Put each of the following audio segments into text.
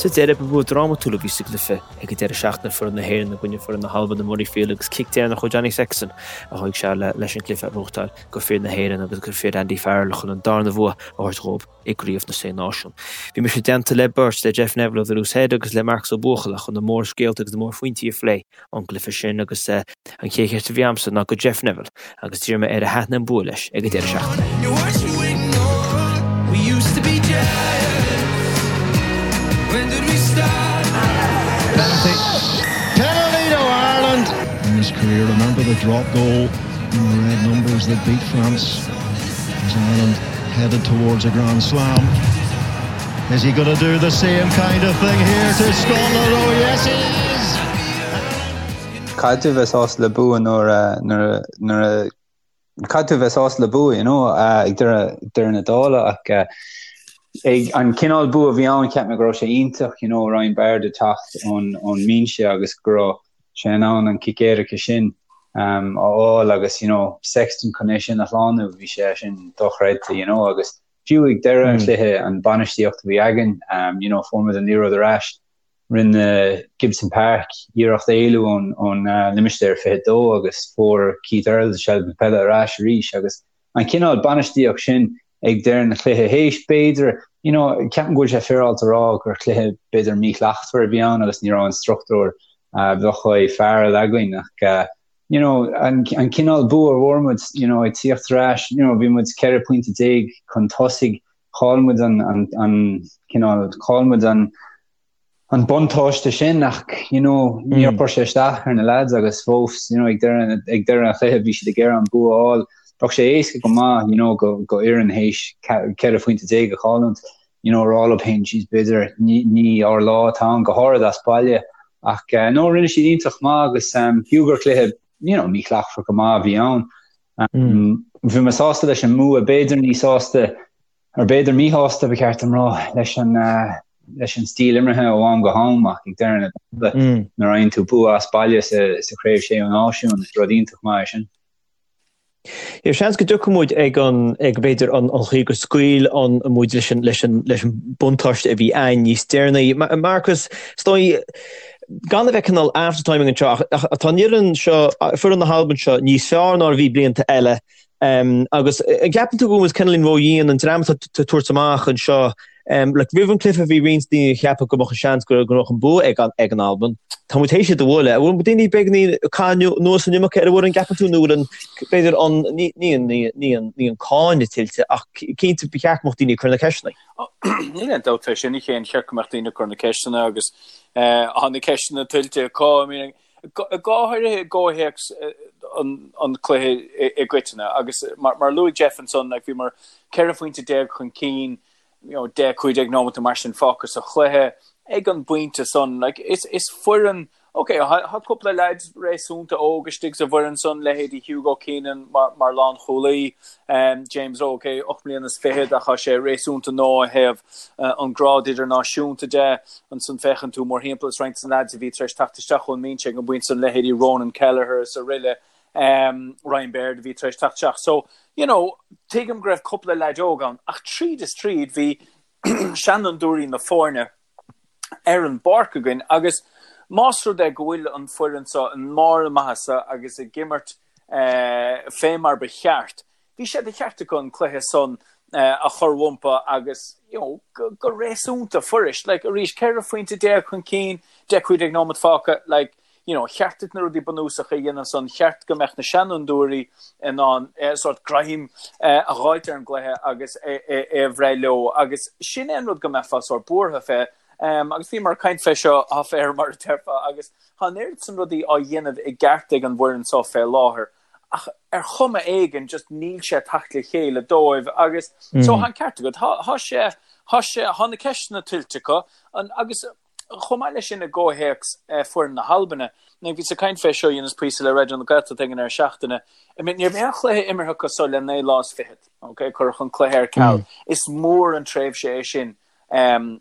Sa deireadh, ba bhua drámatúil a bhí sa gcluiche ag an deireadh seachtaine, foireann na hÉireann i gcoinne foireann na hAlban i Murrayfield agus cic deireanach ó Johnny Sexton a chuaigh sé leis an gcluiche a ghnóthachtáil do fir na hÉireann agus do fir Andy Farrell chun an darna bhua a thabhairt dhóibh i gCraobh na Sé Náisiún. Bhí mise i dteannta le beirt, le Jeff Neville ó The Loose Head agus le Marcus Ó Buachalla chun na mórscéalta agus na mórphointí a phlé ón gcluiche sin agus an chéad cheist a bhí a'msa ná go Jeff Neville agus d'iarr mé air ar thaitin an bua leis ag an deireadh seachtaine. Penalty to Ireland. In his career, remember the drop goal in the red numbers that beat France as Ireland headed towards a Grand Slam. Is he going to do the same kind of thing here to Scotland? Oh yes he is! Caithfidh tú bheith sásta le bua nuair a nuair nuair a caithfidh tú bheith sásta le bua you know ag deireadh deireadh na dála ach ag an cineál bua a bhí ann cheap mé go raibh sé iontach you know Ryan Baird ag teacht ón ón mbinse agus go raibh sé in ann an cic éirice sin um, a fháil agus you know Sexton chun é sin a shlánú bhí sé sin dochreidte you know agus Fiú ag deireadh an chluiche, an bainistíocht a bhí againn, you know, fuair muid an liathróid ar ais, rinne Gibson Park iarracht éalú ón limistéar 22 agus fuair Keith Earls seilbh na peile ar ais arís agus an cineál bainistíocht sin ag deireadh an chluiche théis b'fhéidir, you know, ceapaim go bhfuil sé féaráilte a rá gur chluiche b'fhéidir míshlachtmhar a bhí ann agus ní raibh an struchtúr a bheadh uaidh Farrell againn ach you know, an, an cineál bua a bhfuair muid, you know, ag tíocht ar ais, you know, bhí muid 14 pointe chun tosaigh, chaill muid an, an, an cineál, chaill muid an, an buntáiste sin ach, you know, níor chuir sé isteach ar na lads agus fós, you know, ag deireadh, ag deireadh an chluiche bhí siad ag iarraidh an bua a fháil. Bheadh sé éasca go maith, you know, go, go fhoireann théis 14 phointe a chailliúint, you know, rá leo féin, jeez, b'fhéidir ní, ní ár lá atá ann go háirid as baile. Ach eh, no, rinne siad iontach maith agus um, fiú gur cluiche, you know, míshlachtmhar go maith a bhí ann. Um, Bhí mé sásta leis an mbua, b'fhéidir ní sásta, ar b'fhéidir míshásta ba cheart dom rá leis an uh, leis an stíl imeartha ó am go ham ach ag deireadh na dála mm. nuair a fhaigheann tú bua as baile sa, sa chraobh sé náisiún, is rud iontach maith é sin. Yeah, seans go dtiocfaidh muid ag an, ag b'fhéidir an chaoi gur scaoil an muid leis an, leis an, leis an buntáiste a bhí ann níos deireanaí. Marcus, is dóigh, gan a bheith cineál after-timing anseo, ach tá an fhoireann seo, foireann na hAlban seo níos fearr ná a bhí blianta eile. Agus an gceapann tú go bhfuil muid cineáilín ródhian an dream atá ag tabhairt amach anseo Like, roimh an cluiche bhí roinnt daoine ag ceapadh go mbeadh an seans go mbeadh an bua ag an ag an Albain. Tá muid théis iad a bhualadh. An bhfuil daoine beagainín ag caitheamh anuas an iomarca ar an bhfoireann, gceapann tú, nó bhfuil an, b'fhéidir an, ní, ní an, ní, ní an, ní an cáineadh tuillte ach cinnte ba cheart go mbeadh daoine ag cur na ceisteanna. Níl aon dabht fé sin, a Chéin, cheart go mbeadh daoine ag cur na ceisteanna agus tá na ceisteanna tuillte acu. I mean, go háirithe i gcomhthéacs an chluiche i gcoitinne agus mar a luaigh Jeff ansan, like, bhíomar 14 phointe chun cinn, you know, 10, 15 nóimeat nó mar sin fágtha sa chluiche ag an bpointe san. Like, is, is foireann, ok, tá cúpla leaids réasúnta óg istigh sa bhfoireann san, leithéidí Hugo Keenan mar, mar lánchúlaí, um, James Rowe, ok, 8 mbliana is fichead ach tá sé réasúnta nua ó thaobh uh, an grád idirnáisiúnta de. Ansan féachann tú mórthimpeall is roinnt de na leaids a bhí tar éis teacht isteach ón mbinse ag an bpointe san, leithéidí Ronan Kelleher is aroile, um, Ryan Baird a bhí tar éis teacht isteach. So, you know, tuigim go raibh cúpla leaid óg ann, ach tríd is tríd bhí seanfhondúirí na foirne ar an bpáirc againn agus más rud é go bhfuil an foireann seo i mbarr a maitheasa agus ag imirt eh, fé mar ba cheart, bhí sé de cheart acu an cluiche san a chur rompu agus you know, go, go réasúnta fuirist. Like, arís, 14 phointe chun cinn, 10 15 nóimeat fágtha, like, you know, cheart duit na rudaí bunúsacha a dhéanamh san, cheart go mbeadh na seanfhondúirí in ann eh, sort greim eh, a dh'fháilt ar an gcluiche agus é, é, é a bhreith leo agus sin é an rud go mbeifeá sort buartha fé. Um, agus bhíomar ag caint fé seo off air mar a déarfá agus tá an oiread san rudaí á dhéanamh i gceart ag an bhfoireann seo fé láthair ach ar chuma éigin just níl sé ag teacht le chéile dóibh agus so tá an ceart agat tá tá sé tá sé tá na ceisteanna tuillte acu an agus chomh maith leis sin i gcomhthéacs foireann na hAlbaine now bhíos ag caint fé seo dheineas píosa le Raidió na Gaeltachta ag an deireadh seachtaine I mean ní raibh aon chluiche imeartha acu so le 9 lá is fichead ok cuireadh an cluiche ar ceal is mór an tréimhse é sin um,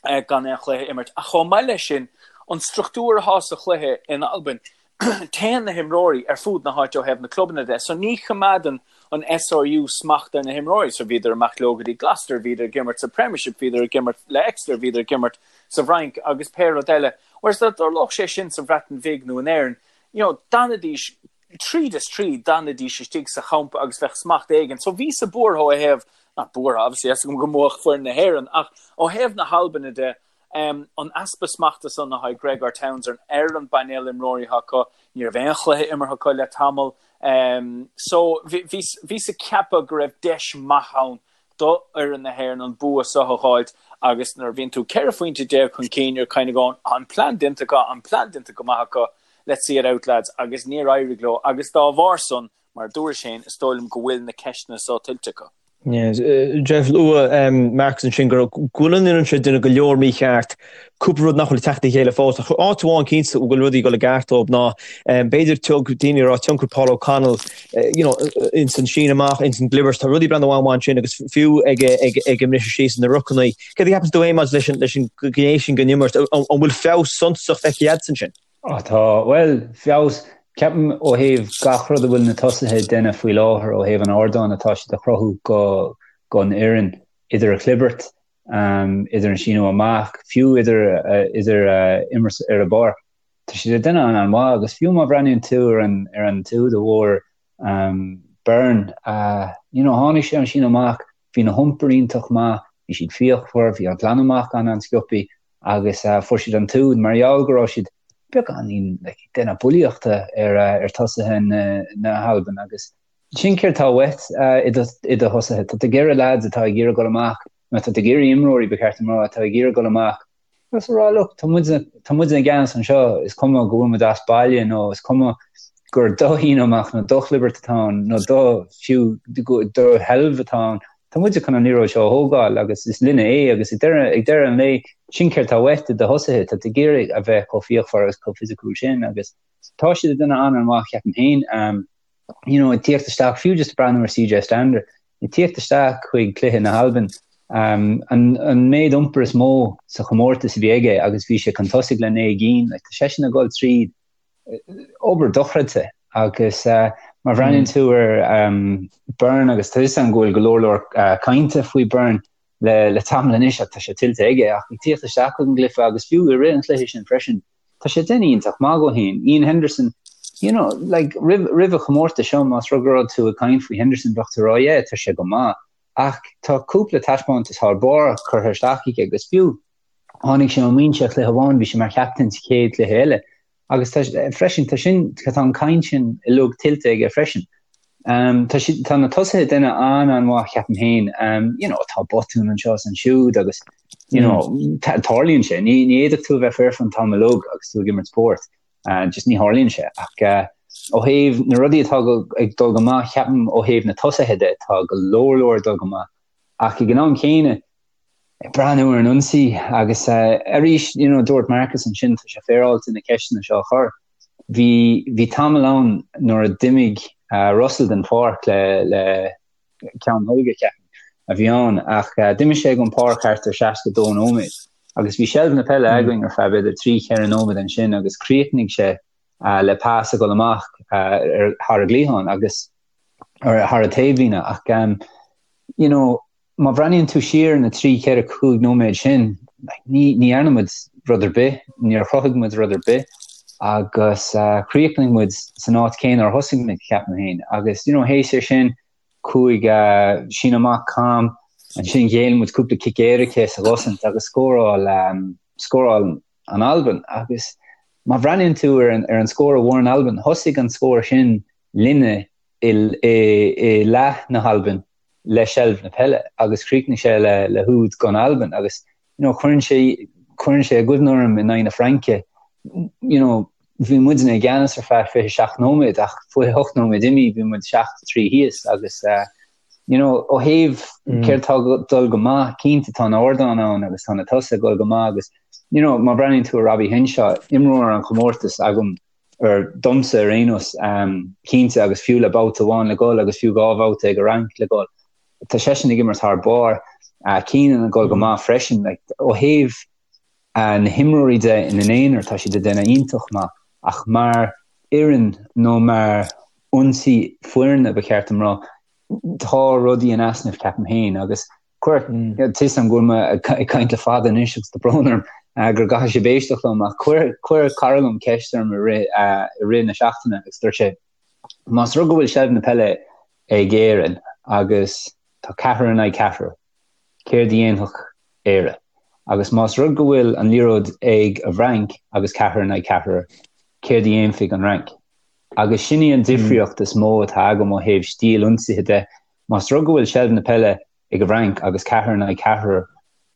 gan aon chluiche a imirt. Ach chomh maith leis sin, an struchtúr atá sa chluiche in Albain, téann na himreoirí ar fud na háite ó thaobh na clubanna de, so ní choimeádann an SRU smacht ar na himreoirí. So bhíodar amach leo go dtí Gloucester, bhíodar ag imirt sa Premiership, bhíodar ag imirt le Exeter, bhíodar ag imirt sa bhFrainc agus pé rud eile. Whereas dá dtarlódh sé sin sa Bhreatain Bhig nó in Éirinn, you know, d'fhanfaidís tríd is tríd, d'fhanfaidís istigh sa champa agus bheadh smacht éigin. So bhíos-sa buartha ó thaobh, not buartha, obviously, tá a fhios agam go mbuafadh foireann na hÉireann, ach ó thaobh na hAlban de, an easpa smachta san atá ag Gregor Townsend ar an bpainéal imreoirí atá acu, ní raibh aon chluiche imeartha acu le tamall. So bhíos ag ceapadh go raibh deis maith ann do fhoireann na hÉireann an bua seo a dh'fháilt agus nuair a bhíonn tú 14 phointe chun cinn you're kind of going an plean déanta acu, an plean déanta go maith acu, let's see it out lads agus níor éirigh leo agus dá bharr san, mar a dúrais féin, is dóigh liom go bhfuil na ceisteanna seo tuillte acu. Jeff luaigh Marcus ansin go bhfuil an fhoireann seo ag déanamh go leor mícheart, cúpla rud nach bhfuil ag teacht le chéile fós. Ach áit amháin cinnte go bhfuil rudaí ag dul i gceart dóibh ná b'fhéidir tug daoine a rá tionchar Paul O'Connell you know, ins an síneadh amach, ins an gclibirt, tá rudaí ag breathnú an-mhaith ansin agus fiú ag ag ag an mbriseadh síos na rucanna. Céard a cheapann tú féin maidir leis an leis an ghné sin den imirt? An bhfuil feabhas suntasach feicthe agat ansin? Á tá, bhuel, feabhas, ceapaim ó thaobh gach rud a bhfuil na tosaithe ag déanamh faoi láthair ó thaobh an ardáin atá siad a chruthú go don fhoireann, idir an chlibirt, idir an síneadh amach, fiú idir idir imirt ar an bpáirc. Tá siad ag déanamh an-mhaith agus fiú má bhreathnaíonn tú ar an ar an t-úd a bhfuair Byrne, you know, tháinig sé an síneadh amach, bhí na hiompair iontach maith, bhí siad fíochmhar, bhí an glanadh amach an-an-sciobtha agus fuair siad an t-úd mar gheall go raibh siad beagáinín like, ag déanamh bulaíochta ar, ar tosaithe na, na hAlban agus sin céard atá uait i do, i do thosaithe. Tá tú ag iarraidh lads atá ag iarraidh dul amach, nó tá tú ag iarraidh imreoirí ba cheart dom a rá atá ag iarraidh dul amach agus a rá look, tá muid, tá muid i gceannas anseo, is cuma go bhfuil muid as baile nó is cuma gur do shíneadh amach nó do chlibirt atá ann nó do fiú do sheilbh atá ann, tá muide chun an liathróid seo a thógáil agus is linne é agus ag deireadh, ag deireadh an lae sin céard atá uait i do thosaithe, tá tú ag iarraidh a bheith chomh fíochmhar agus chomh fisiciúil sin agus tá siad ag déanamh an-an-mhaith ceapaim féin. You know, ag tíocht isteach, fiú just breathnú ar CJ Stander, ag tíocht isteach chuig cluiche na hAlban, um, an, an méid iompar is mó sa chomórtas a bhí aige agus bhí sé chun tosaigh le 9 gcinn, like, tá seisean ag dul tríd obair dochreidte agus má bhreathnaíonn tú ar Byrne agus tá 'fhios a'm go bhfuil go leor leor cainte faoi Byrne le le tamall anois ach tá sé tuillte aige ach ag tíocht isteach chuig an gcluiche agus fiú i rith an chluiche sin freisin tá sé déanamh iontach maith dhó féin. Iain Henderson you know like roimh roimh an chomórtas seo más rud go raibh tú ag caint faoi Henderson bheadh tú ag rá yeah tá sé go maith ach tá cúpla taispeántas thar barr curtha isteach aige agus fiú Tháinig sé ón mbinse cluiche amháin, bhí sé mar chaptaen sa chéad chluiche eile. Agus tá, freisin, tá sin, tá an caint sin uilig tuillte aige freisin. Um, tá, si, tá na tosaithe ag déanamh an-an-mhaith ceapaim féin. Um, you know, tá botún anseo is ansiúd agus you know, mm. tarlaíonn sé. Ní, ní fhéadfadh tú a bheith foirfe an t-am uilig agus tú ag imirt spórt. Uh, just ní tharlaíonn sé. Ach uh, ó thaobh na rudaí atá go, ag dul go maith, ceapaim ó thaobh na tosaithe de, tá go leor leor ag dul go maith. Ach ag an am céanna, ag breathnú ar an ionsaí agus arís, you know, dúirt Marcus ansin, tá sé féaráilte na ceisteanna seo a chur. Bhí, bhí tamall ann nuair a d'imigh Russell den pháirc le, le ceann tholga, ceapaim, a bhí ann, ach d'imigh sé den pháirc thart ar 62 nóiméad agus bhí seilbh na peile againn ar feadh b'fhéidir 3, 4 nóiméad ansin agus chríochnaigh sé le pas a dhul amach ar, thar an gcliathán agus ar, thar an taobhlíne ach, you know, má bhreathnaíonn tú siar na 3, 4, 5 nóiméad sin, ní ní dhearna muid rud ar bith, níor chruthaigh muid rud ar bith agus chríochnaigh muid san áit céanna ar thosaigh muid, ceapaim féin. Agus you know, théis é sin, chuaigh síneadh amach cam, ansin ghéill muid cúpla cic éirice sa gcosaint agus scóráil scóráil an Albain. Agus má bhreathnaíonn tú ar an ar an scór a bhfuair an Albain, thosaigh an scór sin linne i i i leath na hAlban le seilbh na peile agus chríochnaigh sé le le húd don Albain agus you know cuireann sé cuireann sé i gcuimhne orm in aghaidh na Fraince you know bhí muidne i gceannas ar feadh 27 nóiméad ach 28 nóiméad imithe bhí muid 7-3 thíos agus uh, you know ó thaobh mm. céard tá dul go maith cinnte tá an ardán ann agus tá na tosaithe ag dul go maith agus you know má bhreathnaíonn tú ar Robbie Henshaw imreoir an chomórtais agam ar domsa ar aon nós, cinnte, agus fiú le babhta amháin le dhul agus fiú dhá bhabhta ag an Fhrainc le dhul, tá seisean ag imirt thar barr. Keenan ag dul go maith freisin. Like, ó thaobh na himreoirí de ina n-aonar, tá siad ag déanamh iontach maith, ach mar fhoireann nó mar ionsaí foirne, ba cheart dom rá, tá rudaí in easnamh, ceapaim féin, agus Cuir, tá 'fhios a'm go bhfuil mé ag caint le fada anois agus tá brón orm. Go gcaithfidh sibh éisteacht liom ach chuir chuir cara liom ceist orm i rith i rith na seachtaine agus dúirt sé más rud go bhfuil seilbh na peile ag Éirinn agus tá ceathrar in aghaidh ceathrar, céard a dhéanfadh Éire? Agus más rud go bhfuil an liathróid ag an bhFrainc agus ceathrar in aghaidh ceathrar, céard a dhéanfaidh an Fhrainc? Agus sin í an difríocht is mó atá agam ó thaobh stíl ionsaithe de. Más rud go bhfuil seilbh na peile ag an bhFrainc agus ceathrar in aghaidh ceathrar,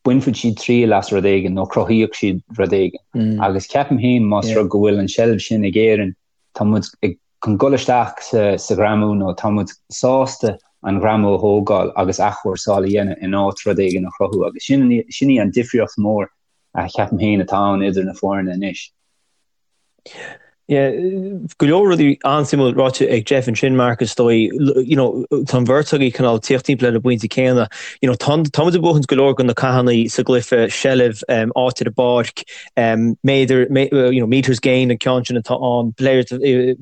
bainfidh siad triail as rud éigin nó cruthaíodh siad rud éigin. Agus ceapaim féin más rud go bhfuil an seilbh sin ag Éirinn, tá muid ag chun dul isteach sa sa ghreamú nó tá muid sásta an greamú a thógáil agus athchúrsáil a dhéanamh in áit rud éigin a chruthú agus sin sin í an difríocht mhór a cheapaim féin atá ann idir na foirne anois. Yeah, go leor rudaí an-suimiúil ráite ag Jeff ansin, Mark, is dóigh, you know, tá an bheirt agaibh cineál tíocht timpeall ar an bpointe céanna. You know, tá tá muid ag buachaint go leor de na cathanna sa gcluiche, seilbh, um, áit ar an bpáirc, um, méadar, mé, you know, meters gained an ceann sin atá ann, players, uh,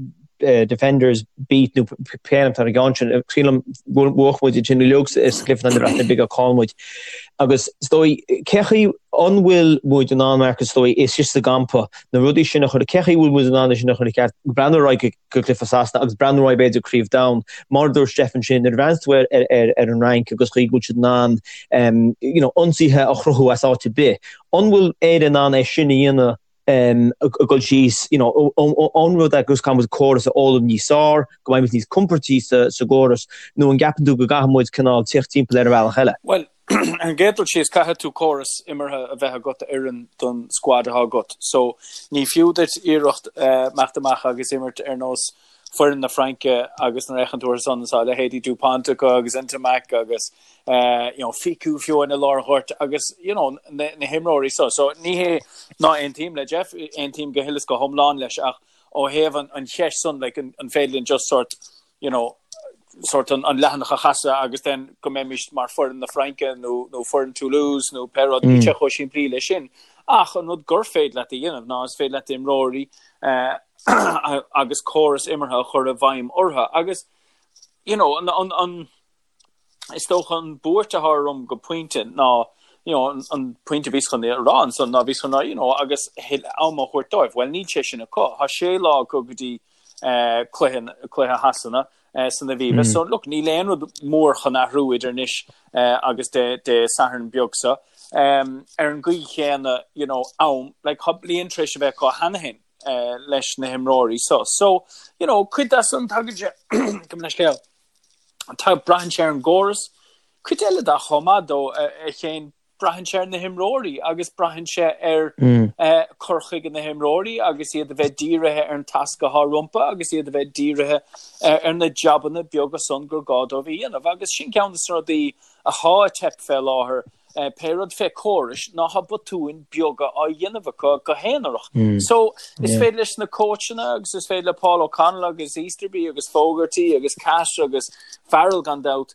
uh, defenders beat nó pé ainm atá ar an gceann sin. Sílim bhuaigh muid sin uilig sa gcluiche na Breataine Bige chaill muid. Agus is dóigh, cé chaoi an bhfuil muid in ann, Mark, is dóigh, istigh sa gcampa, na rudaí sin a chur, cé chaoi bhfuil muid in ann é sin a chur i gceart, breathnú ar aghaidh go cluiche Sasana agus breathnú ar aghaidh b'fhéidir Craobh Domhain, mar a dúirt Jeff ansin, nuair a bhreathnaíonn tú ar, ar, ar, ar an Fhrainc agus chaoi go bhfuil siad in ann um, you know, ionsaithe a chruthú as áit ar bith. An bhfuil Éire in ann é sin a dhéanamh um, ag dul síos, you know, an rud é agus caithfidh muid córas a fhoghlaim níos fearr, go mbeidh muid níos compordaí sa, sa gcóras, nó an gceapann tú go gcaithfidh muid cineál tíocht timpeall ar an bhealach eile? Bhuel, ar an gcéad dul síos, caithfidh tú córas imeartha a bheith agat a oireann don squad atá agat. So, ní fiú duit iarracht imeacht amach agus imirt ar nós foireann na Fraince agus nuair a fhéachann tú orthu san, tá leithéidí Dupont acu agus Ntamack agus you know, Fickou fiú i lár an ghoirt agus you know, na, na himreoirí so. So ní hé ná aontaím le Jeff, aontaím go huile is go hiomlán leis ach ó thaobh an, an cheist san like, an, an féidir linn just sort you know, sort an, an leathanach a chasadh agus then go mbeimis mar foireann na Fraince nó, nó foireann Toulouse nó pé rud, níl sé chomh simplí le sin. Ach an rud gur féidir leat a dhéanamh ná is féidir leat imreoirí uh, agus córas imeartha a chur i bhfeidhm orthu agus you know, an, an, an, is dócha an buairt atá orm go pointe ná you know, an, an pointe a bhíos chun a rá ansan ná bhíos chun rá you know, agus am a thabhairt dóibh. Well níl sé sin acu. Tá sé lá acu go dtí uh, cluiche, cluiche Shasana uh, san Aviva. Mm. So look, níl aon rud mór chun athrú idir anois uh, agus Dé, Dé Sathairn beag seo. Um, ar an gcaoi chéanna, you know, am, like, tá bliain tar éis a bheith acu cheana féin. Uh, leis na himreoirí so. So, you know, cuid de san tagann sé gabh mo leithscéal. Tá braitheann sé ar an gcóras. Cuid eile de chomh maith dó a Chéin braitheann sé ar na himreoirí agus braitheann sé ar cur chuige na himreoirí agus iad a bheith dírithe ar an tasc atá rompu agus iad a bheith dírithe ar na jabanna beaga san gur gá dóibh a dhéanamh agus sin ceann de na rudaí atá ag teip fé láthair pé rud fé córais ná tá botúin beaga á dhéanamh acu go haonarach. So is féidir leis na cóitseanna agus is féidir le Paul O'Connell agus Easterby agus Fogarty agus Cash agus Farrell gan dabht,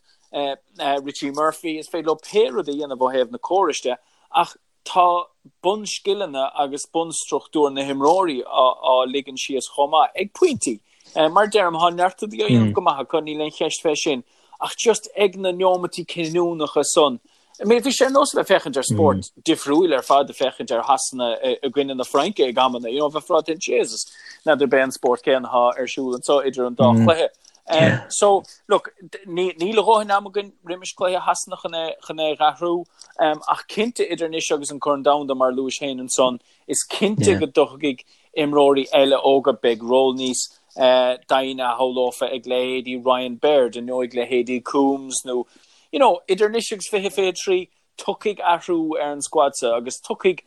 Richie Murphy, is féidir leo pé rud a dhéanamh ó thaobh na córais de ach tá bunscileanna agus bunstruchtúr na himreoirí á ligean síos chomh maith ag pointí. Mar deirim, tá neart rudaí á dhéanamh go maith acu, níl aon cheist fé sin. Ach just ag na neomataí cinniúnacha san, I mean, bhí sé ar nós a bheith féachaint ar spórt difriúil ar fad ag féachaint ar Shasana i gcoinne na Fraince ag amanna, you know, bheifeá ag rá Jesus, n'fheadar ab é an spórt céanna atá ar siúl anseo idir an dá chluiche. Um, so, look, níl a dhóthain am againn roimis cluiche Shasana chun é, chun é dh'athrú, um, ach cinnte idir anois agus an Corn Domhanda mar luais féin ansan, Is cinnte go dtiocfaidh imreoirí eile óga, beidh ról níos doimhne a shamhlófá ag leithéidí Ryan Baird nó ag leithéidí Coombes nó you know idir anois agus 2023 tiocfaidh athrú ar an squad seo agus tiocfaidh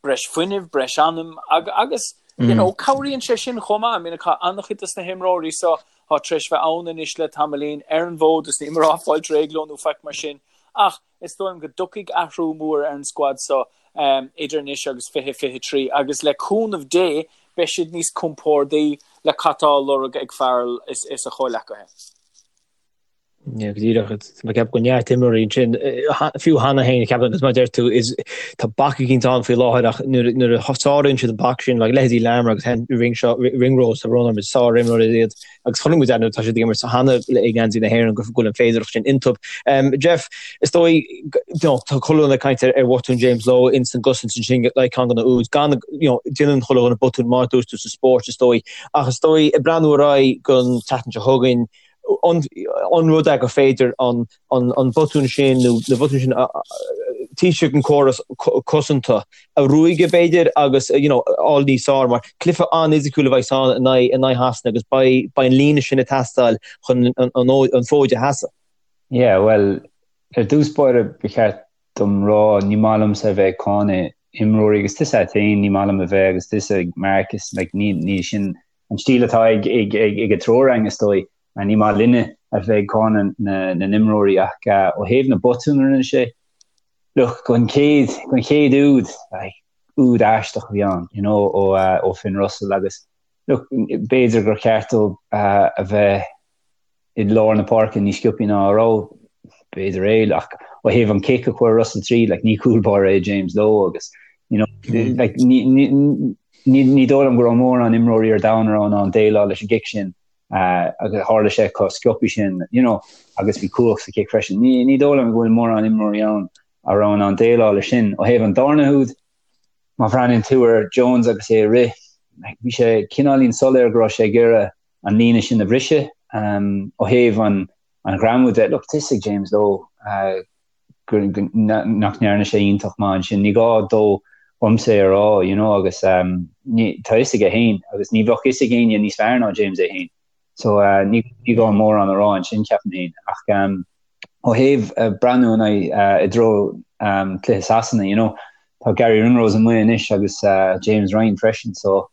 breis fuinnimh, breis anam agus you know cabhraíonn sé sin chomh maith. I mean tá an-chuid dos na himreoirí seo atá tar éis bheith ann anois le tamaillín ar an bhfód is níl mé ag rá fáilte réidh leo nó faic mar sin ach Is dóigh liom go dtiocfaidh athrú mór ar an squad seo idir anois agus 2023 agus le cúnamh Dé beidh siad níos compórdaí le cad tá á lorg ag Farrell is a chomhleacaithe. Yeah, go díreach. Tá mé ag ceapadh go neart imreoirí ansin, fiú cheana féin, ceapaim, agus mar a deir tú, is tá bac eicínt ann faoi láthair ach nuair nuair a sáraíonn siad an bac sin, like leithéidí Larmour agus Ringshaw, Ringrose, tá brón orm, is sár-imreoirí iad agus chonaic muid nuair atá siad ag imirt cheana i ngeansaí na hÉireann go bhfuil an féidearthacht sin iontu. Jeff, is dóigh, you know, tá chuile dhuine ag caint ar ar bhotún James Lowe ins an gcosaint ansin le ceann de na úid, gan, you know, déanann chuile dhuine botún mar a dúirt tú sa spórt is dóigh, ach is dóigh ag breathnú ar aghaidh don tseachtain seo chugainn, an rud é gur féidir an botún sin nó na botúin sin taobh istigh den chóras cosanta a ruaigeadh b'fhéidir agus you know fháil níos fearr mar cluiche an-fhisiciúil a bheidh ann in aghaidh in aghaidh Shasana agus beidh beidh an líne sin ag teastáil chun an an fód a sheasamh. Yeah, bhuel, ar dtús báire ba cheart dom rá, ní maith liomsa a bheith ag cáineadh imreoirí agus tusa féin, ní maith liom a bheith agus tusa Marcus, like, ní ní sin an stíl atá ag ag ag ag an triúr againn is dóigh. Ní maith linne a bheith ag cáineadh na na n-imreoirí ach ó thaobh na botún a rinne sé, look, don chéad don chéad úd, like, úd aisteach a bhí ann, you know, ó ó Finn Russell agus look, b'fhéidir gur cheart dó a bheith i lár na páirce níos sciobthaí ná a raibh, b'fhéidir é, ach ó thaobh an cic a chuir Russell tríd, like, ní cúl báire é James Lowe agus, you know, like, ní, ní, ní, ní dóigh liom go raibh mórán imreoirí ar domhan a raibh in ann déileáil leis an gcic sin, uh, agus tharla sé chomh sciobthaí sin, you know, agus bhí cumhacht sa chic freisin. Ní, ní dóigh liom go bhfuil mórán imreoirí ann a raibh in ann déileáil leis sin. Ó thaobh an darna húd, má bhreathnaíonn tú ar Jones agus é ag rith, like, bhí sé cineáilín soiléir go raibh sé ag iarraidh an líne sin a bhriseadh. Ó thaobh an ghreamú de, look, tá a fhios ag James Lowe nach ndearna sé iontach maith ansin. Ní gá dó dhomsa é a rá, you know, agus tá a fhios aige féin agus ní bheadh a fhios ag éinne níos fearr ná James é féin. So ní gá mórán a rá ansin, ceapaim féin. Ach ó thaobh breathnú in aghaidh i dtreo cluiche Sasana, you know, tá Garry Ringrose amuigh anois agus James Ryan freisin, so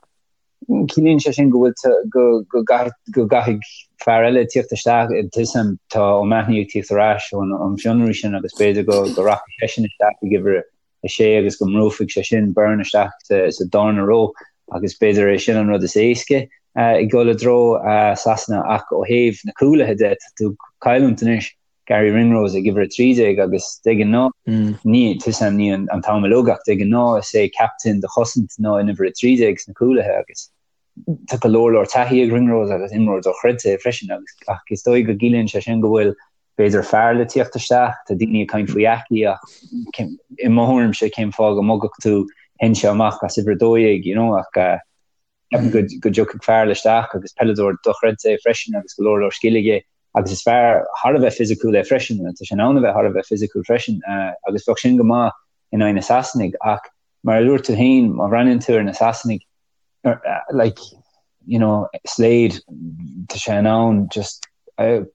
Ciallaíonn sé sin go bhfuil go go go gcaithfidh fear eile tíocht isteach tuigim tá O'Mahony ag tíocht ar ais ón an fionraí sin agus b'fhéidir go go rachaidh seisean isteach ag uimhir a sé agus go mbrúfaidh sé sin Byrne isteach sa sa darna ró agus b'fhéidir é sin an rud is éasca ag dul i dtreo Sasana ach ó thaobh na cúlaithe de tá tú ag cailliúint anois Garry Ringrose ag uimhir 13 agus de ghnáth ní tuigim ní an t-am uilig ach de ghnáth is é captaen do chosaint ná an uimhir 13 sna cúlaithe agus tá go leor leor taithí ag Ringrose agus imreoir dochreidte é freisin agus ach is dóigh go gciallaíonn sé sin go bhfuil b'fhéidir fear le tíocht isteach, tá daoine ag caint faoi Aki ach i mo thuairimse cén fáth go mbogfadh tú Henshaw amach as uimhir 12 you know ach Ceapaim go go dtiocfaidh fear eile isteach agus peileadóir dochreidte é freisin agus go leor leor scil aige agus is fear thar a bheith fisiciúil é freisin, tá sé in ann a bheith thar a bheith fisiciúil freisin agus bheadh sin go maith in aghaidh na Sasanaigh ach mar a dúirt tú féin, má bhreathnaíonn tú ar na Sasanaigh like you know Slade tá sé in ann just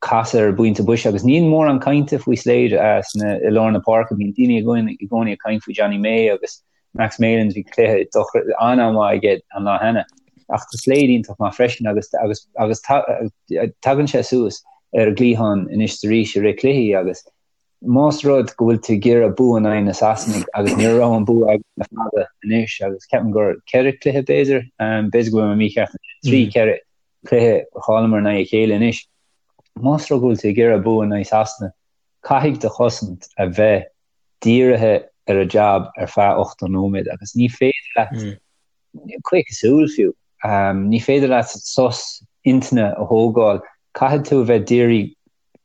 casadh ar an bpointe boise agus níl mórán cainte faoi Slade sna i lár na páirce, bíonn daoine i gcónaí ag caint faoi Jonny May agus Max Malins, bhí cluiche an-mhaith aige an lá cheana. Ach tá Slade iontach maith freisin agus agus agus tagann sé suas ar an gcliathán anois is arís i rith cluichí agus más rud go bhfuil tú ag iarraidh bua in aghaidh na Sasanaigh agus ní raibh an bua agat le fada anois agus ceapaim gur ceithre cluiche b'fhéidir, b'fhéidir go bhfuil mé mícheart, 3 4 cluiche a chailleamar in aghaidh a chéile anois. Más rud go bhfuil tú ag iarraidh bua in aghaidh Sasana, caithfidh do chosaint a bheith dírithe ar a jab ar feadh 80 nóiméad agus ní féidir leat caochadh súl fiú, ní féidir leat sos intinne a thógáil, caithfidh tú a bheith dírithe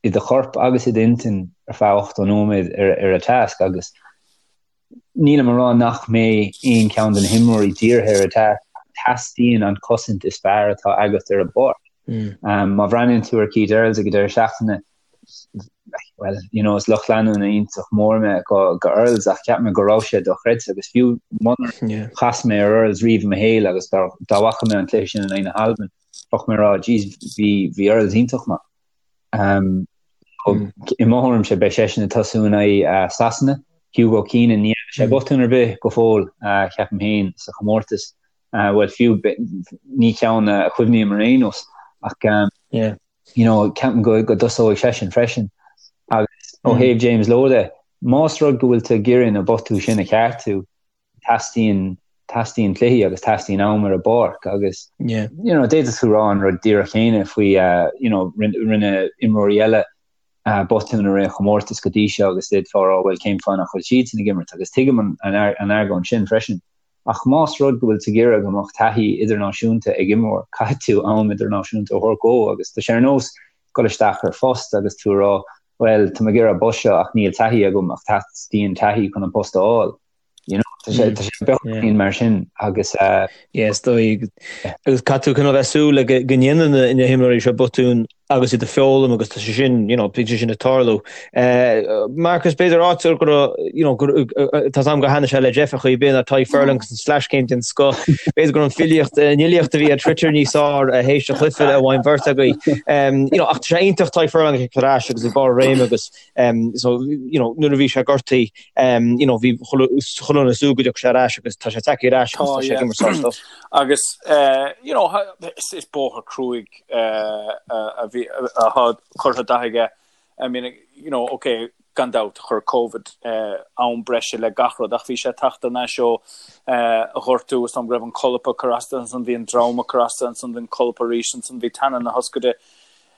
i do chorp agus i d'intinn ar feadh 80 nóiméad ar an tasc agus nílim a rá nach mbeidh aon cheann de na himreoirí dírithe ar an tasc, teastaíonn an chosaint is fearr atá agat ar an bpáirc. Má bhreathnaíonn tú ar Keith Earls ag an deireadh seachtaine, well, you know, is lucht leanúna iontach mór mé go, go Earls ach cheap mé go raibh sé dochreidte agus fiú munar chas mé ar Earls riamh i mo shaol agus dá, dá bhfaca mé an cluiche sin in aghaidh na hAlban, bheadh mé ag rá, jeez, bhí, bhí Earls iontach maith. Um, mm. I mo thuairimse beidh seisean ag tosú in aghaidh uh, Sasana, Hugo Keenan, ní dhearna sé mm. botún ar bith go fóill, uh, ceapaim féin sa chomórtas. Uh, well, fiú ní ceann a chuimhním ar aon nós ach um, yeah. you know, ceapaim go, go dtosóidh seisean freisin. Agus ó thaobh James Lowe de, más rud go bhfuil tú ag iarraidh na botúin sin a cheartú, teastaíonn, teastaíonn cluichí agus teastaíonn am ar an bpáirc agus, yeah. you know, d'fhéadfadh tú rá an rud díreach céanna faoi, uh, you know, rinne, rinne imreoirí eile. Botún i rith an chomórtais go dtí seo agus d'fhéadfá a rá bhuel cén fáth nach bhfuil siadsan ag imirt agus tuigim an argóint sin freisin. Ach más rud go bhfuil tú ag iarraidh go mbeadh taithí idirnáisiúnta ag imreoir, caithfidh tú am idirnáisiúnta a thabhairt dhó agus tá sé ar nós dul isteach ar phost agus tú a rá bhuel tá mé ag iarraidh an post seo ach níl taithí agam ach teastaíonn taithí chun an post a fháil. You know, tá sé tá sé beagáinín mar sin agus eh, Yeah, is dóigh agus caithfidh tú cineál bheith súil le go go ndéanann na na himreoirí seo botúin agus iad ag foghlaim agus tá sé sin, you know, bíonn sé sin ag tarlú. Eh, Marcus, b'fhéidir áit go raibh, you know, go tá 's agam gur thaitnigh sé le Jeff ar chaoi ar bith ná Tadhg Furlong agus an sleaschéim den scoth. B'fhéidir go raibh an filíocht, an fhilíocht a bhí ar Twitter níos fearr théis an chluiche a bhain beirt agaibh. Um, you know, ach tá sé iontach Tadhg Furlong ag ar ais agus ag barr a réime agus um, so, you know, nuair a bhí sé gortaithe, um, you know, bhí chuile dhuine ag súil go dtiocfadh sé ar ais agus tá sé tagtha ar ais agus tá sé ag imirt sár-stuff. Agus, uh, you know, is, is bóthar cruaidh uh, a bhí atá curtha de aige. I mean, you know, okay, gan dabht chuir Covid uh, am breise le gach rud ach bhí sé ag teacht thar n-ais ó uh, ghortú is dóigh go raibh an colp ag cur as dó ansan bhí an droim ag cur as dó ansan bhí an colp arís ansan bhí teannán na hioscaide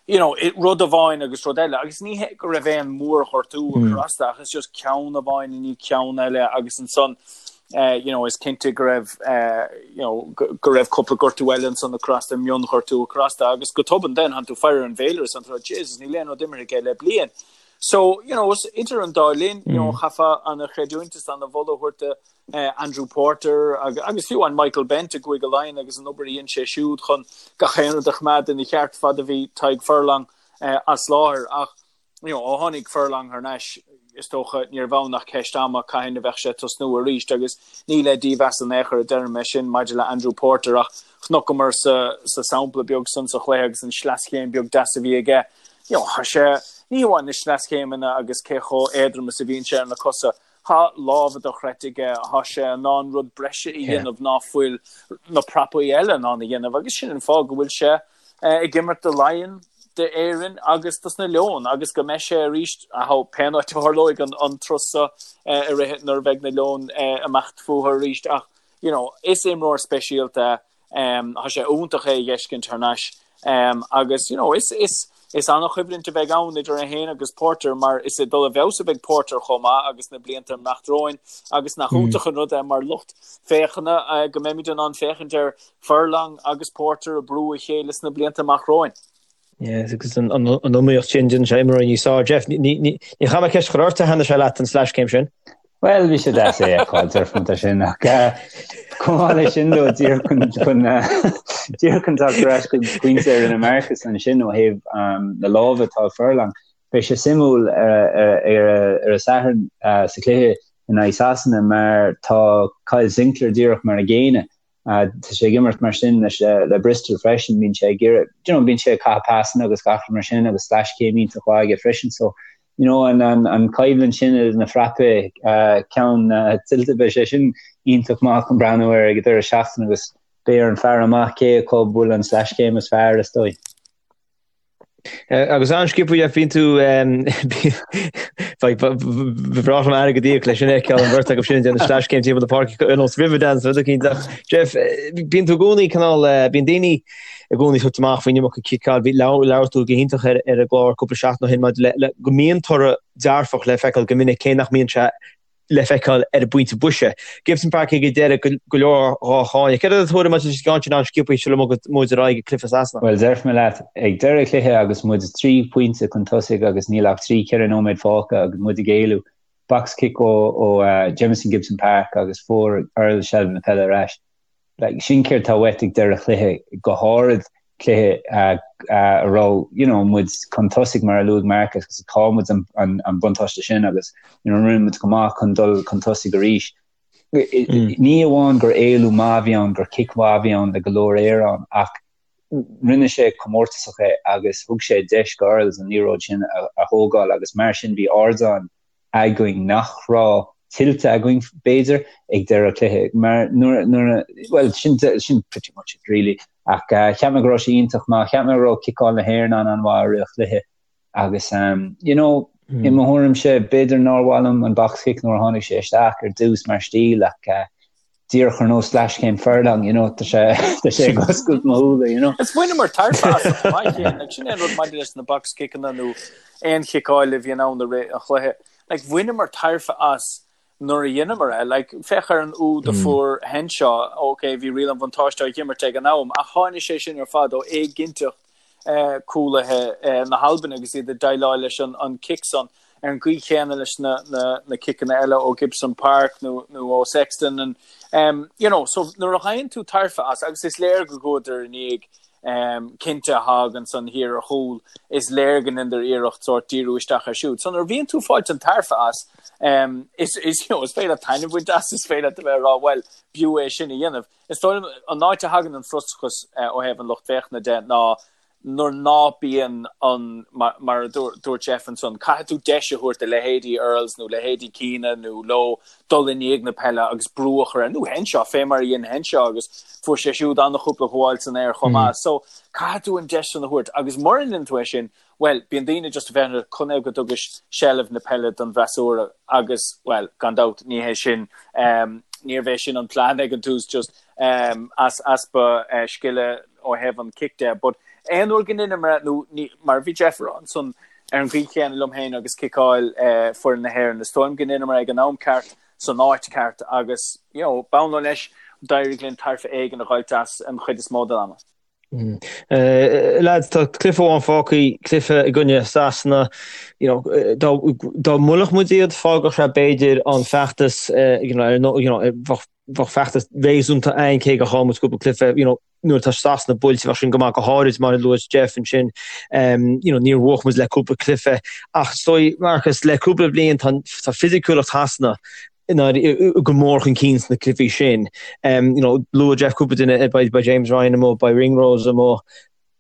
you know, rud amháin agus rud eile, agus ní hé go raibh aon mhórghortú ag cur as dó, ach is just ceann amháin i ndiaidh ceann eile agus ansan eh, you know, is cinnte go raibh eh, you know, go, go raibh cúpla gortú eile ansan ag cur as dó, mionghortú ag cur as dó, agus go tobann then tánn tú ag faire ar an bhféilire is tánn tú Jesus, níl aon rud imeartha aige le bliain. So, you know, idir an dá linn, you know, chaithfeá ana-chreidiúint is ana-mholadh a thabhairt do Andrew Porter agus fiú amháin Michael Bent i gCúige Laighean agus an obair a dhein sé siúd chun gach aon rud a choimeád ina cheart fad a bhí Tadhg Furlong as láthair. Ach you know, ó tháinig Furlong thar n-ais, is dócha níorbh ann ach ceist ama cathain a bheadh sé ag tosnú arís agus ní le dímheas in aon chor a deirim é sin maidir le Andrew Porter ach chonaiceamar sa, sa sampla beag san sa chluiche agus an sleaschéim beag deas a bhí aige, you know, tá sé, ní hamháin na sleaschéimeanna agus cé chomh éadrom is a bhíonn sé ar na cosa, Tá lámha dochreidte aige, tá sé in ann rud breise a dhéanamh ná fuil na prapaí eile in ann a dhéanamh agus sin an fáth go bhfuil sé ag imirt do Laighean, d'Éirinn agus dos na Leoin agus go mbeidh sé arís pén áit a tharlóidh an turas seo i rith nuair a bheidh na Leoin ag imeacht fúthu arís ach you know is imreoir speisialta é. Tá sé iontach é a dh'fheiscint thar n-ais agus you know is is is an-choimhlint a bheidh ann idir é féin agus Porter mar is ag dul i bhfeabhas a bheidh Porter chomh maith agus na blianta ag imeacht romhainn agus nach iontach an rud é mar lucht féachana go mbeimid in ann féachaint ar Furlong agus Porter ag brú a chéile sna blianta amach romhainn. Yes, agus an iomaíocht sin déanann sé imreoirí níos fearr. Jeff, ní chaithfidh mé ceist a chur ort, ar thaitnigh sé leat an sleaschéim sin? Bhuel, bhí sé deas é a fheiceáil, déarfainn é sin, ach chomh maith leis sin though, díreach chun chun díreach chun teacht ar ais chuig pointe a rinne Marcus ansin ó thaobh na lámha atá ag Furlong, beidh sé suimiúil ar an Satharn sa chluiche in aghaidh Sasana mar tá Kyle Sinckler díreach mar an gcéanna Tá sé ag imirt mar sin leis le Bristol freisin, bíonn sé ag iarraidh, you know, bíonn sé ag caitheamh pasanna agus gach rud mar sin agus sleaschéim iontach mhaith aige freisin. So, you know, an, an, an coimhlint sin idir na frapaí, uh, ceann uh, tuillte beidh sé sin iontach maith chun breathnú air ag an deireadh seachtaine agus beidh ar an faire amach cé acu a bhfuil an sleaschéim is fearr is dóigh. Agus an-sciobtha Jeff, bíonn tú ba bhreá liom airgead a íoc leis sin a fheiceáil an bheirt acu sin ag déanamh sleaschéim timpeall na páirce ar nós Riverdance rud eicínt ach Jeff, bíonn tú i gcónaí cineál, bíonn daoine i gcónaí ag tabhairt amach faoin iomarca ciceáil, bhí labhair tú go hiontach ar ar an gclár cúpla seachtain ó shin maidir le le go mbíonn toradh dearfach le feiceáil go minic cé nach mbíonn sé le feiceáil ar an bpointe boise. Gibson Park ag an deireadh go leor dhá cháineadh. Céard é do thuairim maidir leis an gceann sin an-sciobtha sula mbogann muid ar aghaidh ag cluiche Sasana? Bhuel, déarfaidh mé leat, ag deireadh cluiche agus muid 3 phointe chun tosaigh agus níl ach 3, 4 nóiméad fágtha agus muid ag éalú, box kick ó ó Jamison Gibson Park agus fuair Earls seilbh na peile ar ais. Like, sin céard tá uait ag deireadh chluiche, go háirid cluiche a raibh, you know, muid chun tosaigh mar a luaigh Marcus agus chaill muid an, an, an buntáiste sin agus, you know, rinne muid go maith chun dul chun tosaigh arís. Mm. Ní amháin gur éalú maith a bhí ann, gur cic mhaith a bhí ann le go leor aer ann, ach rinne sé comórtasach é agus thug sé deis go Earls an liathróid sin a, a thógáil agus mar sin bhí ardán againn nach raibh tuillte againn, b'fhéidir, ag deireadh cluiche. Mar nuair, nuair, bhuel, sin, sin pretty much it really. Ach uh, cheap mé go raibh sé iontach maith, cheap mé go raibh ciceáil na hÉireann an an-mhaith i rith an chluiche. Agus, um, you know, mm. i mo thuairimse, b'fhéidir nár mhaith liom an box kick nuair a tháinig sé isteach ar dtús mar stíl ach uh, Díreach ar nós leathchéim furlong, you know, tá sé tá sé ag oscailt mo shúile, you know. Is bhaineamar tairbhe as chomh maith céanna, like, sin é an rud maidir leis na box kickanna nó aon chiceáil a bhíonn ann i rith an chluiche. Like, bhaineamar tairbhe as nuair a dheineamar é. Like, féach ar an úd a fuair Henshaw, ok, bhí riail an bhuntáiste á dh'imirt ag an am, ach tháinig sé sin ar fad ó éiginnteacht cúlaithe na hAlban agus iad ag déileáil leis an cic san ar an gcaoi chéanna leis na ciceanna eile ó Gibson Park nó ó Sexton and um, you know, so nuair a ghaibheann tú tairbhe as agus is léir go gcuadar i ndiaidh um, cinnte a thagann san thiar ar chúl is léir go ndeineadar iarracht sórt díriú isteach ar siúd. So nuair a bhíonn tú fáilt an tairbhe as um, is, is, you know, is féidir leat taitneamh a bhaint as is féidir leat a bheith ag rá well b'fhiú é sin a dhéanamh. Is dóigh liom an áit a thagann an frustrachas ó thaobh an lucht féachana de ná nuair ná bíonn an, mar a dúirt Jeff ansan, caithfidh tú deis a thabhairt do leithéidí Earls nó leithéidí Keenan nó Lowe dul i ndiaidh na peile agus brú a chur air, nó Henshaw, fé mar a dhein Henshaw agus fuair sé siúd an-chúpla gabháil san aer chomh maith. So, caithfidh tú an deis san a thabhairt agus mura ndéanann tú é sin, Bhuel, bíonn daoine just ag féachaint ar conaobh go dtugais seilbh na peile don bhfreasúra agus, bhuel, gan dabht, ní hé sin, níorbh é sin an plean ag an tús, just as easpa scile ó thaobh an cic de. But aon uair go ndeineamar é, nó ní, mar a bhí Jeff a rá ansan, ar an gcaoi chéanna liom féin agus ciceáil foireann na hÉireann, is dóigh liom go ndeineamar é ag an am ceart, san áit ceart agus, you know, b'ann leo leis, d'éirigh linn tairbhe éigin a dh'fháilt as an chuid is mó den ama. Lads, tá cluiche amháin fágtha, cluiche i gcoinne Sasana. You know, dá dá mbuailfeadh muid iad, fágfadh sé b'fhéidir an feachtas, you know, ar you know, bheadh bheadh feachtas réasúnta againn cé gur chaill muid cúpla cluiche, you know, nuair atá Sasana buailte bheadh sin go maith go háirid mar a luaigh Jeff ansin, you know, níor bhuaigh muid le cúpla cluiche. Ach is dóigh, Marcus, le cúpla bliain tá tá fisiciúlacht Shasana go mór chun cinn sna cluichí sin. You know, luaigh Jeff cúpla duine, beidh James Ryan amuigh, beidh Ringrose amuigh.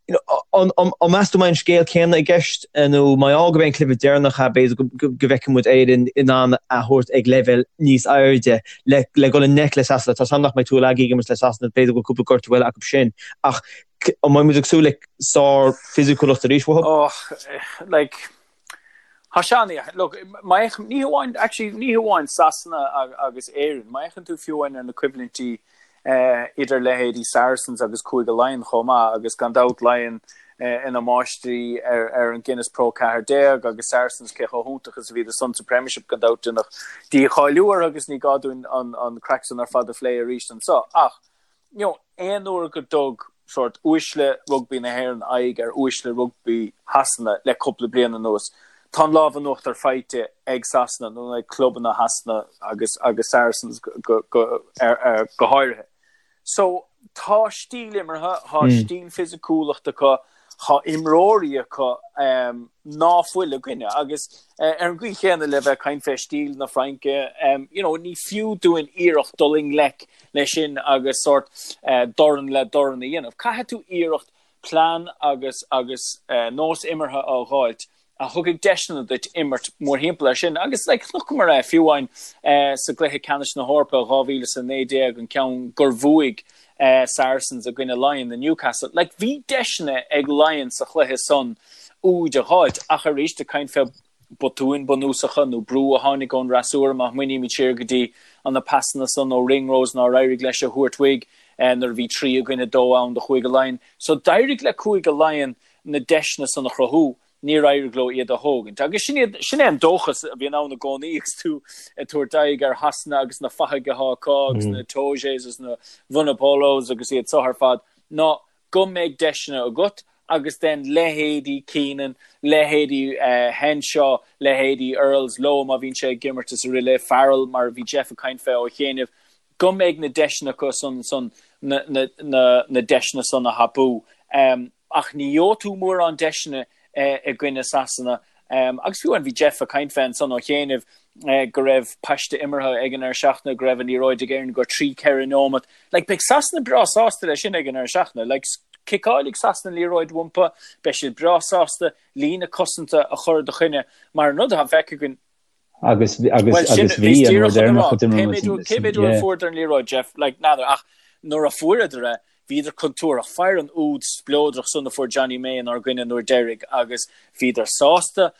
You know, an, an, an meas tú mbeidh an scéal céanna i gceist nó mar gheall gurb é an cluiche deireanach é, b'fhéidir go, go, go bhfeicfidh muid Éirinn in ann a thabhairt ag leibhéal níos airde le, le dhul i ngleic le Sasana. Tá 's agam nach mbeidh Tuilagi ag imirt le Sasana, b'fhéidir go bhfuil cúpla gortú eile acu sin. Ach an mbeidh muid ag súil le sár-fhisiciúlacht arís uathu? Oh, like, Tá sé an-, look, má fhéachann, ní hamháin, actually, ní hamháin Sasana agus Éirinn, má fhéachann tú fiú amháin ar na coimhlintí idir leithéidí Saracens agus Cúige Laighean chomh maith, agus gan dabht Laighean ina máistrí ar ar an Guinness Pro 14 agus Saracens cé chomh hiontach is a bhíodar san sa Premiership gan dabht deineadh dícháiliú orthu agus ní gá dúinn an an craic san ar fad a phlé arís anseo ach you know, aon uair go dtug sórt uaisle rugbaí na hÉireann aghaidh ar uaisle rugbaí Shasana le cúpla bliain anuas, tá an lámh in uachtar faighte ag Sasana nó ag clubanna Shasana agus agus Saracens go, go, ar, ar, go háirithe. So, tá stíl imeartha, tá stíl fisiciúlachta acu, Tá imreoirí acu ná fuil againne agus ar an gcaoi chéanna le bheith ag caint fé stíl na Fraince, you know, ní fiú dúinn iarracht dul i ngleic leis sin agus sórt dorn le dorn a dhéanamh. Caithfidh tú iarracht plean agus agus nós imeartha a dh'fháilt a thugfaidh deiseanna duit imirt mórthimpeall air sin. Agus like chonaiceamar é fiú amháin sa gcluiche ceannais na hEorpa 2019, an ceann gur bhuaigh Saracens i gcoinne Laighean i Newcastle. Like bhí deiseanna ag Laighean sa chluiche san úid a dh'fháilt ach arís ag caint fé botúin bunúsacha nó brú a tháinig ón fhreasúra má smaoinímid siar go dtí an na pasanna san ó Ringrose nár éirigh leis a thabhairt uaidh nuair a bhí 3 i gcoinne 2 ann do Chúige Laighean. So d'éirigh le Cúige Laighean na deiseanna san a chruthú, níor éirigh leo iad a thógaint. Agus sin iad, sin é an dóchas a bhíonn ann i gcónaí agus tú ag tabhairt aghaidh ar Shasana agus na fathaigh atá acu agus na Itojes agus na Vunipolas agus iad so ar fad, ná go mbeidh deiseanna agat agus then leithéidí Keenan, leithéidí Henshaw, leithéidí Earls, Lowe má bhíonn sé ag imirt is araile, Farrell mar a bhí Jeff ag caint fé ó chianaibh, go mbeidh na deiseanna acu san san na na na na deiseanna san a thapú. Ach ní gheobhaidh tú mórán deiseanna i gcoinne Sasana. Agus fiú amháin bhí Jeff ag caint fé ansan ó chianaibh go raibh paiste imeartha ag an ndeireadh seachtaine, go raibh an liathróid ag Éirinn go 3, 4 nóimeat. Like, beidh Sasana breá sásta leis sin ag an ndeireadh seachtaine. Like, ciceálfaidh Sasana an liathróid uathu, beidh siad breá sásta líne cosanta a chur i do choinne mar an rud atá feicthe againn Agus agus agus bhí an uair deireanach a d'imir muid Cé mhéad uair a fuaireadar an liathróid, Jeff? Like, n'fheadar, ach nuair a fuaireadar é, Bhíodar contúirteach. Faigh an úd spleodrach san a fuair Jonny May inár gcoinne an uair deiridh agus bhíodar sásta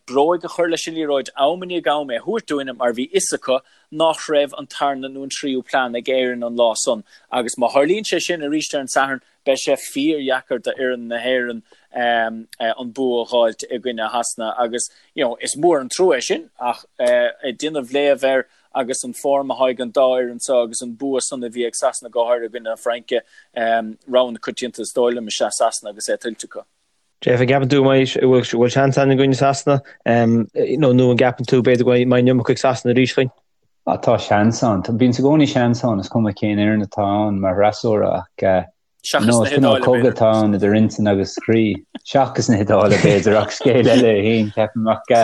bróig a chur leis an liathróid am i ndiaidh am é a thabhairt dúinne mar bhí fhios acu nach raibh an tarna nó an tríú plean ag Éirinn an lá san agus má tharlaíonn sé sin arís ar an Satharn beidh sé fíordheacair d'fhoireann na hÉireann an bua a dh'fháilt i gcoinne Shasana agus you know is mór an trua é sin ach ag déanamh léamh air agus an form atá ag an dá fhoireann seo agus an bua san a bhí ag Sasana go háirithe i gcoinne na Fraince, rogha na coitianta is dóigh liom is ea Sasana agus é tuillte acu. Jeff, an gceapann tú go mbeidh, bhfuil seans ann i gcoinne Sasana nó nó an gceapann tú b'fhéidir go mbeidh an iomarca ag Sasana arís chugainn? Ah, tá seans ann. Bíonn i gcónaí seans ann, is cuma cén fhoireann atá ann mar fhreasúra ach Seachas na HIodáile, b'fhéidir. Cogadh atá ann idir intinn agus croí. Seachas na hIodáile, b'fhéidir, ach scéal eile é féin, ceapaim. Ach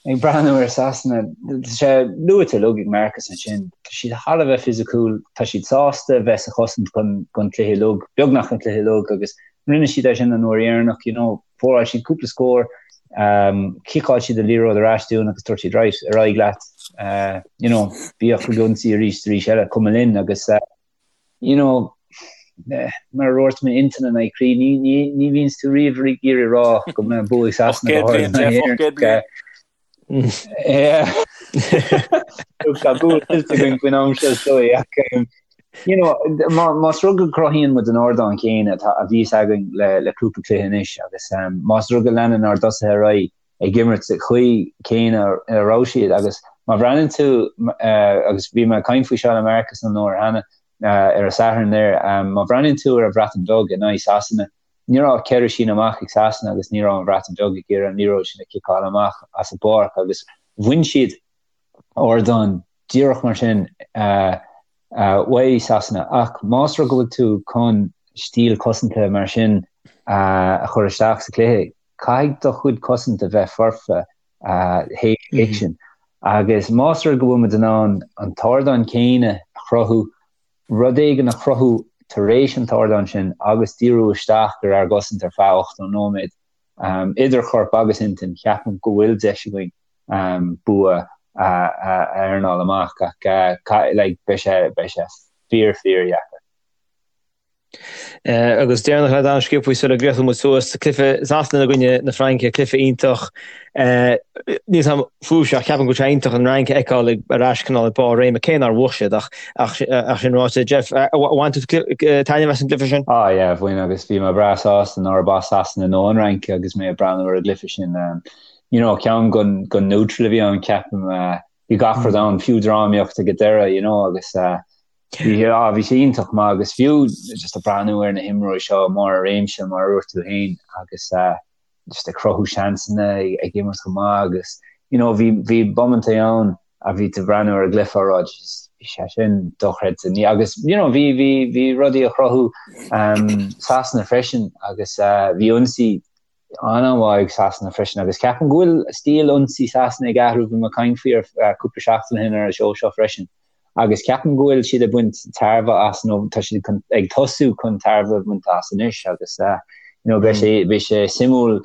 ag breathnú ar Sasana, tá sé luaite uilig ag Marcus ansin, tá siad thar a bheith fisiciúil, tá siad sásta bheith sa chosaint don chluiche uilig, beagnach an cluiche uilig, agus rinne siad é sin an uair dheireanach, you know, scóráil siad cúpla scór, chiceáil siad an liathróid ar ais dúinn agus dúirt siad, right, ar aghaidh leat, you know, bíodh ag ionsaí arís arís eile, cuma linn agus. you know, mar a dúirt mé intinn in aghaidh croí, ní, ní, ní bhíonns tú riamh ag iarraidh rá go mbeidh bua ag Sasana go háirithe in aghaidh Éireann. Yeah. Tá bua tuillte againn faoin am seo is dóigh ach um, you know, má, más rud go cruthaíonn muid an ardán céanna atá a bhíos againn le, le cúpla cluiche anois agus um, más rud go leanann ár dtosaithe ar aghaidh ag imirt sa chaoi céanna a raibh siad agus má bhreathnaíonn tú agus bhí mé ag caint faoi seo le Marcus an uair cheana ar an Satharn there má bhreathnaíonn tú ar an Bhreatain Bheag in aghaidh Sasana ní raibh ach 4 síneadh amach ag Sasana agus ní raibh an Bhreatain Bheag ag iarraidh an liathróid sin a chiceáil amach as an bpáirc agus bhain siad ardán díreach mar sin uaidh Sasana ach más rud go bhfuil tú chun stíl cosanta mar sin a chur isteach sa chluiche Caithfidh do chuid cosaint a bheith foirfe théis an chic sin. Agus más rud go bhfuil muid in ann an t-ardán céanna a chruthú, rud éigin a chruthú tar éis an t-ardán sin agus díriú isteach ar ár gcosaint ar feadh 80 nóiméad, idir chorp agus intinn, ceapaim go bhfuil deis againn bua a earnáil amach. Ach like beidh sé fíor fíor dheacair. Agus deireanach le Dan sciobtha sula gcríochnóidh muid suas, cluiche Sasana i gcoinne na Fraince, cluiche iontach. Níl 'fhios a'm fúibhse ach ceapaim go bhfuil sé iontach an Fhrainc a fheiceáil ag ar ais cineál ag barr réime, cé nár bhuaigh siad ach ach sin ráite. Jeff, bhain tú taitneamh as an gcluiche sin? Ah yeah, bhain agus bhí mé breá sásta nárb as Sasana nó an Fhrainc agus mé ag breathnú ar an gcluiche sin. You know, ceann gon gon neutral a bhí ann ceapaim. Bhí gach rud ann, fiú drámaíocht ag an deireadh, you know, agus Bhí ah bhí sé iontach maith agus fiú just ag breathnú ar na himreoirí seo i mbarr a réimse mar a dúirt tú féin agus just ag cruthú seansanna ag imirt go maith agus you know bhí bhí bomaintí ann a bhí tú ag breathnú ar an gcluiche á rá Jesus bhí sé sin dochreidte ní agus you know bhí bhí bhí rudaí a chruthú um, Sasana freisin agus uh, bhí ionsaí an-mhaith ag Sasana freisin agus ceapaim go bhfuil stíl ionsaí Sasana ag athrú, bhí mé ag caint faoi ar cúpla seachtain ó shin ar an seó seo freisin agus ceapaim go bhfuil siad ag baint tairbhe as nó tá siad ag tosú chun tairbhe a bhaint as anois agus you know beidh sé beidh sé suimiúil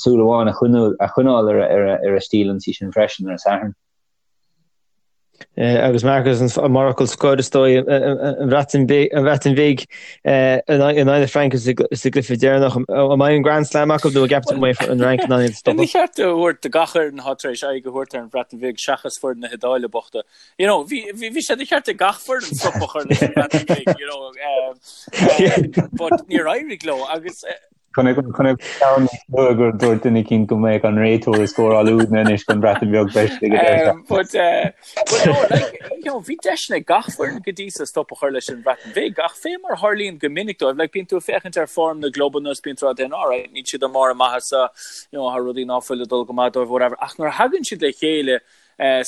súil amháin a choinneáil ar ar a stíl ionsaí sin freisin ar an Satharn. Agus Marcus, mar fhocal scoir is dóigh, an Bhreatain Bhig in aghaidh na Fraince sa gcluiche deireanach. An mbeidh an Grand Slam acu nó an gceapann tú go mbeidh an Fhrainc in ann iad a stopadh? Ní cheart a thabhairt do gach fhoireann atá tar éis aghaidh a thabhairt ar an Bhreatain Bhig seachas foireann na hIodáile bochta. You know, bhí bhí sé de cheart ag gach foireann stop a chur leis an Bhreatain Bhig, you know, but níor éirigh leo agus Chonaic ceann níos luaithe gur dúirt duine eicínt go mbeadh an réiteoir ag scóráil údanna anois don Bhreatain Bheag freisin ag an deireadh seachtaine. But but no like you know bhí deiseanna ag gach foireann go dtí so stop a chur leis an Bhreatain Bhig ach fé mar a tharlaíonn go minic dóibh like bíonn tú ag féachaint ar form na gclubanna is bíonn tú ag rá alright níl siad i mbarr a maitheasa you know tá rudaí ná fuil ag dul go maith dóibh whatever ach nuair a thagann siad le chéile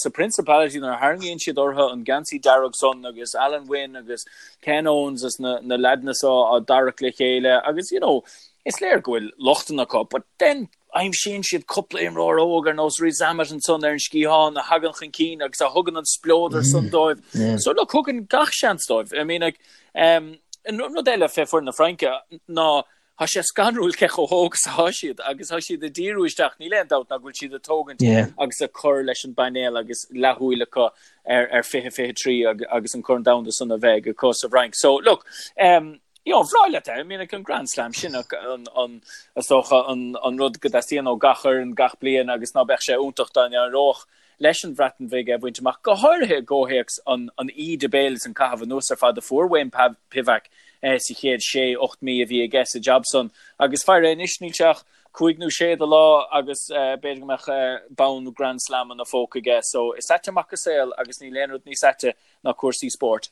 Sa Principality nuair a tharraingíonn siad orthu an geansaí dearg san agus Alun Wyn agus Ken Owens is na na leaideanna so á dtarrac le chéile agus you know is léir go bhfuil lochtanna acu but then aimsíonn siad cúpla imreoir óg ar nós Rees-Zammit ansan ar an sciathán a thagann chun cinn agus a thugann an spleodar san dóibh. So look thugann gach seans dóibh. I mean like um, rud eile fé foireann na Fraince ná. Tá sé scanrúil cé chomh hóg is atá siad agus tá siad ag díriú isteach, níl aon dabht ná go bhfuil siad ag tógaint agus ag cur leis an bpainéal agus leathshúil acu ar ar 2023 agus an Corn Domhanda san a bheidh acu sa bhFrainc. So look, um, you know, bhreá leat é, I mean, an Grand Slam sin an, an, is dócha an, an rud go dteastaíonn ó gach fhoireann gach bliain agus ná beadh sé iontach dá n-éireodh leis an Bhreatain Bhig é a bhaint amach, go háirithe i gcomhthéacs an íde béil is an caitheamh anuas ar fad a fuair Wayne Pivac sa chéad sé, 8 mí a bhí aige sa jab san. Agus faire anois, níl sé ach cúig nó sé de lá agus b'fhéidir go mbeadh bonn Grand Slam ina phóca aige. So is ait amach an saol agus níl aon rud níos aite ná cúrsaí spóirt.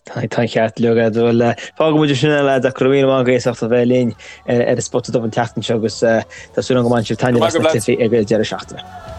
Tá an ceart agat. Bhuel, fágfaidh muid sin é lads ach go raibh míle maith agaibh as ucht a bheith linn ar an Spota Dubh an tseachtain seo agus tá súil agam go mbainfidh sibh taitneamh as na cluichí ag an deireadh seachtaine.